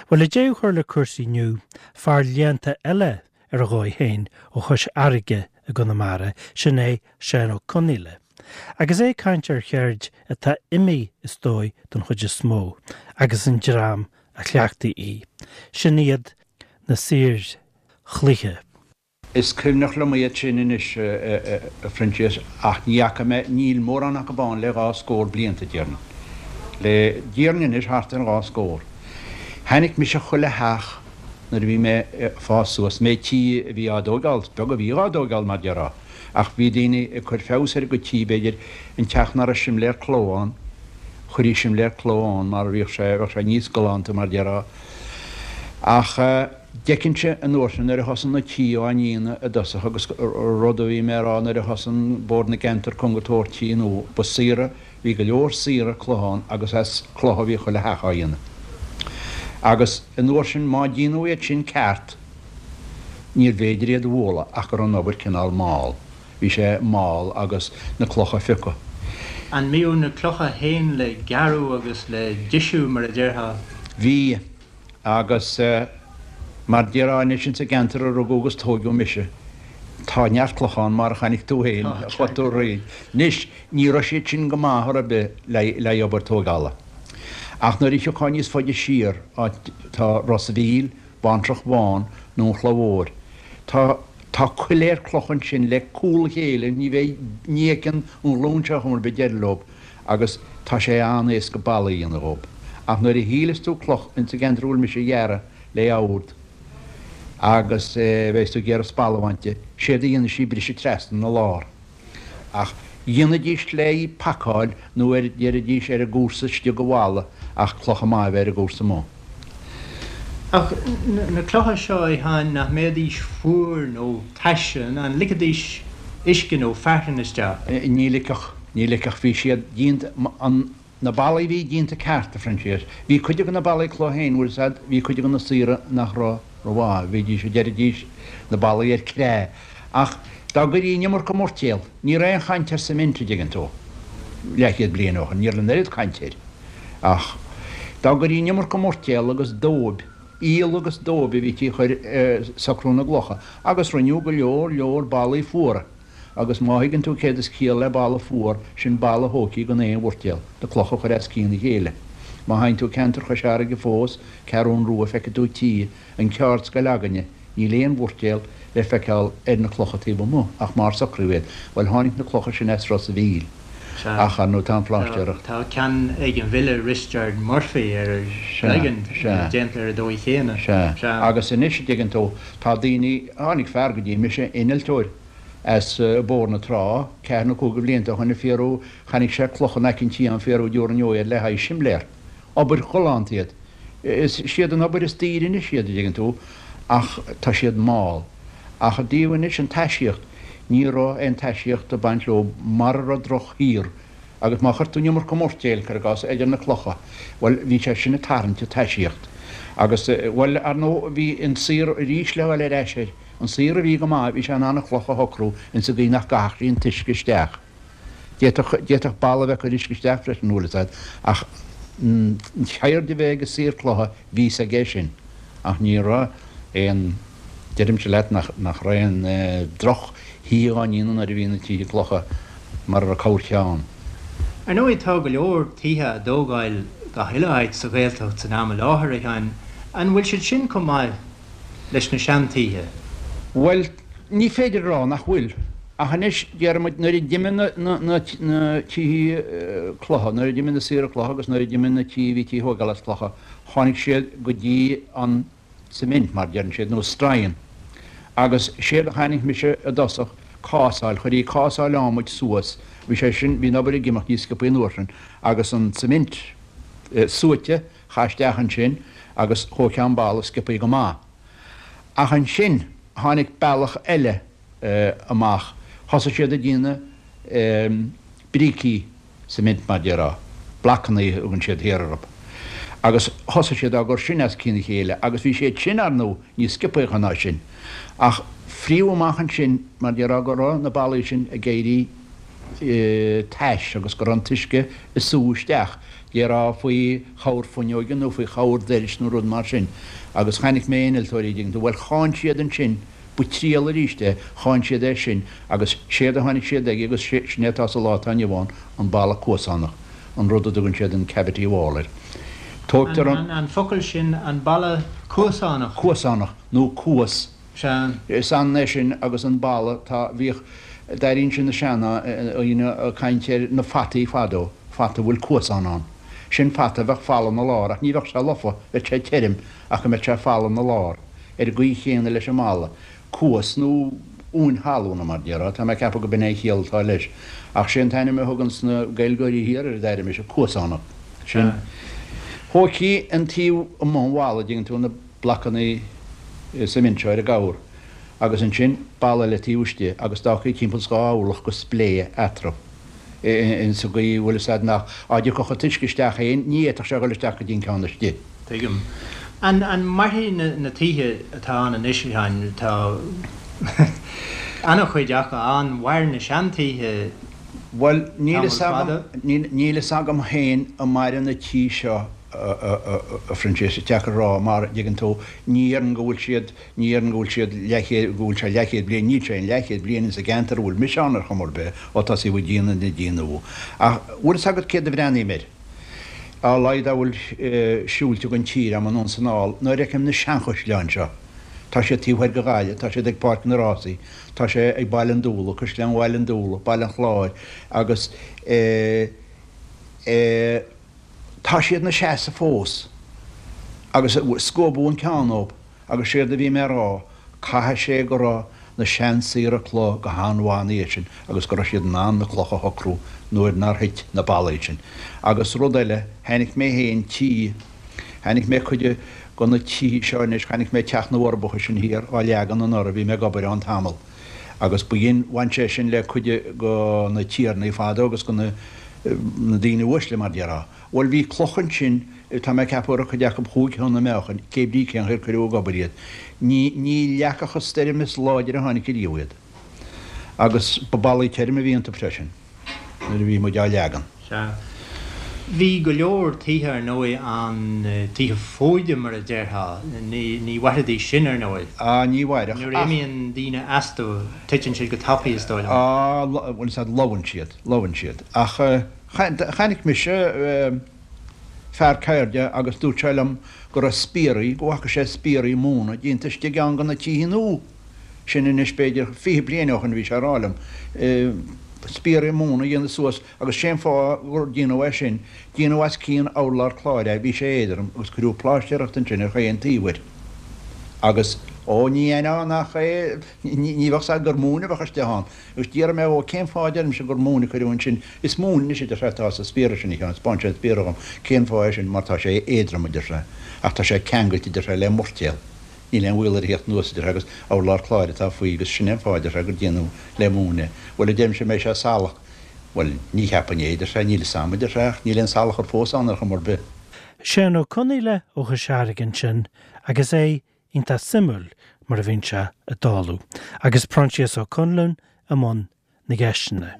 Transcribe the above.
Bhuel, le deireadh a chur le cúrsaí inniu, fear léannta eile ar a dhóigh féin ó Chois Fharraige i gConamara, sin é Seán Ó Conghaile. Agus é ag caint ar cheird atá imithe is dóigh don chuid is mó, agus an dream a chleachtaigh í. Sin iad na saoir chloiche. Is cuimhneach liom iad sin anois, a Phroinsias, ach ní fhaca mé, níl mórán acu ann le dhá scór blianta, déarfainn. Le, déarfainn anois thart ar dhá scór. Chonaic mise chuile theach nuair a bhí mé ag fás suas, méid tí a bhí á dtóigeáil, is beag a bhí dhá dtóigeáil mar déarfá, ach bhí daoine ag cur feabhas ar a gcuid tí, b'fhéidir, an teach nach raibh simléar cló ann, chuirí simléar cló ann mar bhíodh sé, bheadh sé níos galánta mar déarfá. Ach d'fheicinnse an uair sin nuair a thosaigh na tithe á ndéanamh i dtosach agus rud a bhí mé a rá nuair a thosaigh Bord na gCeantar Cúng ag tabhairt tithe nua, ba saothar, Bhí go leor saothar cloch ann agus as cloch a bhí chuile theach á dhéanamh. Agus an uair sin má déanadh iad sin ceart níorbh fhéidir iad a bhualadh ach go raibh an obair cineál mall. Bhí sé mall agus na clocha a phiocadh. An mbíodh na clocha féin le gearradh agus le deisiú mar a déarfá? Bhí. Agus mar déarfá anois ins an gceantar a rugadh agus tóigeadh mise, tá neart clocha ann mar a chonaic tú féin, chuaigh tú thríd. Anois, ní raibh siad sin go maith ar bith le haghaidh obair tóigeála. Ach nuair a thiocfá níos faide siar, áit tá Ros a' Mhíl, Baintreach Bhán nó an Chloich Mhóir, tá tá coiléar cloch ansin le cúl a chéile, ní bheidh, ní fheiceann an ghlúin seo chuma ar bith deireadh leob. agus tá sé an-éasca ballaí a dhéanamh dhób. Ach nuair a shíleas tú cloch ins an gceantar a bhfuil mise a ghearradh le ord agus bheas tú ag iarraidh spalla a bhaint di, séard a dhéanfaidh sí briseadh trasna 'na lár. Ach dhéanfaidís le í pacáil nó ar deiridís ar an gcúrsa istigh go bhalla ach clocha maith a bheith ar an gcúrsa amuigh. Ach na clocha seo, a Sheáin, nach mbeidís fuar nó tais, an ligfidís uisce nó fearthainn isteach? Ní ligfeadh, ní ligfeadh. Bhí siad déanta, an, na ballaí a bhí déanta ceart, a Phroinsias. Bhí cuid de na ballaí cloch féin, bhfuil 'fhios a'd, bhí cuid de na saothra nach raibh rómhaith, bhídís, deiridís, na ballaí ar cré. Ach dá gcuirí an iomarca moirtéal, ní raibh aon chaint ar cement, a dtuigeann tú, leathchéad bliain ó shin, ní raibh an oiread caint air. Ach dá gcuirí an iomarca moirtéal agus dóib, aol agus dóib a bhítí a chur ar socrú na gclocha, agus rinneadh go leor leor ballaí fuara, agus má thuigeann tú céard is ciall le balla fuar, sin balla thóigthí gan aon mhoirtéal, na clocha a chur as cionn a chéile. Má théann tú ceantar Chois Fharraige fós, Ceathrún Rua, feicfidh tú tithe, an ceardscoil againne, níl aon mhoirtéal le feiceáil ar na clocha taobh amuigh ach mar socraíodh iad. Bhuel, tháinig na clocha sin as Ros a' Mhíl. Ach, ar ndóigh, tá an phláistéireacht. Tá ceann ag an bhfile Risteard Murphy ar an gCloigeann déanta ar an dóigh chéanna. Sea. Agus anois, a dtuigeann tú, tá daoine, tháinig fear go dtí mise, innealtóir as Bóthar na Trá, ceathair nó cúig de bhlianta ó shoin ag fiarú, chonaic sé clocha in aice an tí ann fiarú dtabharfainn iad le haghaidh simléar. Obair ghalánta iad. Is siad an obair is daoire anois iad, a dtuigeann tú, ach tá siad mall. Ach i dtaobh anois an taisíocht, ní raibh aon taisíocht ag baint leo mara raibh droch-shaothar agus má chuir tú an iomarca moirtéil, cuir i gcás, idir na clocha, bhuel, bhí sé sin ag tarraingt an taisíocht. Agus, bhuel, ar ndóigh, bhí an saothar arís le dhul ar ais air. An saothar a bhí go maith, bhí sé in ann an chloch a shocrú insa gcaoi nach gcaithfeadh sí an t-uisce isteach. D'fhéadfadh, d'fhéadfadh balla a bheith ag cur uisce isteach freisin, bhfuil fhios a'd, ach an cheird a bheith ag saor cloiche, bhí fhios aige sin. Ach ní raibh aon, deirimse leat nach, nach raibh aon droch thithe á ndéanamh nuair a bhí na tithe clocha mar a raibh corrcheann ann. Ar ndóigh tá go leor tithe á dtógáil gach uile áit sa Ghaeltacht san am i láthair, a Sheáin. An bhfuil siad sin chomh maith leis na seantithe? Bhuel, ní féidir a rá nach bhfuil. Ach anois, déarfaidh muid, nuair a d'imigh na tithe cloiche, nuair a d'imigh na saothra cloiche agus nuair a d'imigh na tithe a bhítí a thógáil as clocha, tháinig siad go dtí an cement, mar a deireann siad, nó stroighin. Agus séard a chonaic mise i dtosach, cásáil, chuirí cásáil adhmaid suas, bhí sé sin, bhí an obair ag imeacht níos sciobthaí an uair sin, agus an cement suaite, chaith isteach ansin agus thóigfeá an balla sciobthaí go maith. Ach ansin tháinig bealach eile amach, thosaigh siad ag déanamh brící cement mar déarfá, blocannaí a thugann siad thiar orthu, agus thosaigh siad á gcur sin as cionn a chéile agus bhí siad sin, ar ndóigh, níos sciobthaí ná sin. Ach fríodh amach ansin mar déarfá go raibh na ballaí sin ag éirí tais agus go raibh an t-uisce ag sú isteach. Déarfá faoi chabhair fuinneoige nó faoi chabhair doiris nó rud mar sin. Agus chonaic mé innealtóirí, an dtuigeann tú, bhuel cháin siad ansin, ba triail arís é, cháin siad é sin agus séard a tháinig siad aige agus sin é atá sa lá atá inniu ann, an balla cuasánach, an rud a dtugann siad an cavity wall air. Tógtar an. An focal sin, an balla cuasánach. Cuasánach, nó cuas. Sea. Is ionann é sin agus an balla, tá, bhíodh, d'airínnse na seandaoine ag caint ar na fataí fadó, fata a bhfuil cuasán ann. Sin fata a bheadh folamh 'na lár, ach ní bheadh sé lofa, bheadh sé tirim, ach go mbeadh sé folamh 'na lár. Ar an gcaoi chéanna leis an mballa. Cuas nó uain thalún, mar déarfá, tá mé ag ceapadh go b'in é an chiall atá leis. Ach sé an t-ainm a thuganns na Gaeilgeoirí thiar air, a d'airigh mise, cuasánach. Sin. Thóigtí an taobh amuigh an bhalla, dtuigeann tú, na. blocanna suimint seo ar an gcabhair agus ansin balla eile taobh istigh agus d'fhágfaí timpeall 's 2 orlach go splé eatarthu in sa gcaoi bhfuil fhios a'd nach á dtiocfadh an t-uisce isteach féin ní fhéadfadh sé a dhul isteach go dtí an ceann istigh. Tuigim. An an mairfidh na na tithe atá ann anois, a Sheáin, tá ana-chuid acu ann, mhair na seantithe Bhuel, níl fhios agam, níl fhios agam féin an mairfidh na tithe seo, a Phroinsias, is deacair a rá, mar, dtuigeann tú, ní dhéarfainn go bhfuil siad, ní dhéarfainn go bhfuil siad leathchéad, go bhfuil sé leathchéad bliain, níl sé aon leathchéad bliain insa gceantar a bhfuil mise ann ar chuma ar bith, ó tosaíodh ag déanamh na dtithe nua. Ach bhfuil fhios agat céard a bhreathnaím air? A laghad dá bhfuil siúilte den tír a'm anonn 's anall, nuair a fheicim na seanchaisleáin seo, tá siad taobh thoir de Ghaillimh, tá siad ag Páirc na Rásaí, Tá sé ag Baile an Dúlaigh, Caisleán Bhaile an Dúlaigh, Baile an Chláir agus eh eh tá siad 'na seasamh fós agus scuabadh an ceann dhób agus séard a bhí mé a rá, caithfidh sé go raibh na seansaothraithe cloch go han-mhaith ina dhiaidh sin agus go raibh siad in ann na clocha a shocrú nuair nár thit na ballaí sin. Agus rud eile, chonaic mé féin tí, Chonaic mé cuid de na tithe seo anois, chonaic mé Teach na bhForbacha sin thiar á leagan anuraidh, bhí mé ag obair ann tamall agus ba dhein, bhain sé sin le cuid de na tiarnaí fadó agus de na daoine uaisle mar déarfá. Bhuel bhí cloch ansin, tá mé ag ceapadh go raibh cuid acu chúig thonna meáchain, cé brí cén chaoi ar cuireadh ag obair iad. Ní, ní leagfadh an stoirm is láidre a tháinig ariamh iad. Agus ba ballaí tirim a bhí iontu freisin. nuair a bhí muid á leagan. Sea. Bhí go leor tithe, ar ndóigh, ann, tithe fóide mar a déarfá. Ní, ní mhairfidís sin, ar ndóigh. Á, ní mhairfeadh, Nuair a ach. imíonn daoine astu, titeann siad go tapaidh, is dóigh liom. Á, bhuel, is ea, lobhann siad, lobhann siad. Ach chonaic mise fear ceirde agus dúirt sé liom go raibh spiaraí, go bhfaca sé spiaraí móna déanta istigh i gceann de na tithe nua. Sin anois b'fhéidir 20 bliain ó shin a bhí sé a rá liom. Spiaraí móna a dhéanamh suas agus sé an fáth gur déanadh é sin, déanadh as cionn urlár cláir é, bhí sé éadrom agus cuireadh pláistéireacht ansin ar chaon taobh air. Agus, ó, ní aithneofá nach é, ní bheadh 's a'd gur móin a bheadh istigh ann. Agus d'fhiafraigh mé dhó cén fáth a deirimse gur móin a cuireadh ansin. Is móin anois a deir sé atá sa spiara sin a Sheáin, 'spáin sé an spiara dhom. Cén fáth é sin? Mar tá sé éadrom a deir sé, ach tá sé ceangailte a deir sé le moirtéal. Níl aon bhaol air a theacht anuas, a deir sé, agus urlár cláir atá faoi agus sin é an fáth, a deir sé, gur déanadh le móin é. Bhuel, a deirimse, an mbeidh sé salach? Bhuel, ní cheapfainn é, a deir sé, níl 'fhios a'm, a deir sé, ach níl aon salachar fós ann ar chuma ar bith. Seán Ó Conaola ó Chois Fharraige ansin agus é iontach suimiúil mar a bhíonn sé ag dáileadh, agus Proinsias Ó Conluain i mbun na gceisteanna.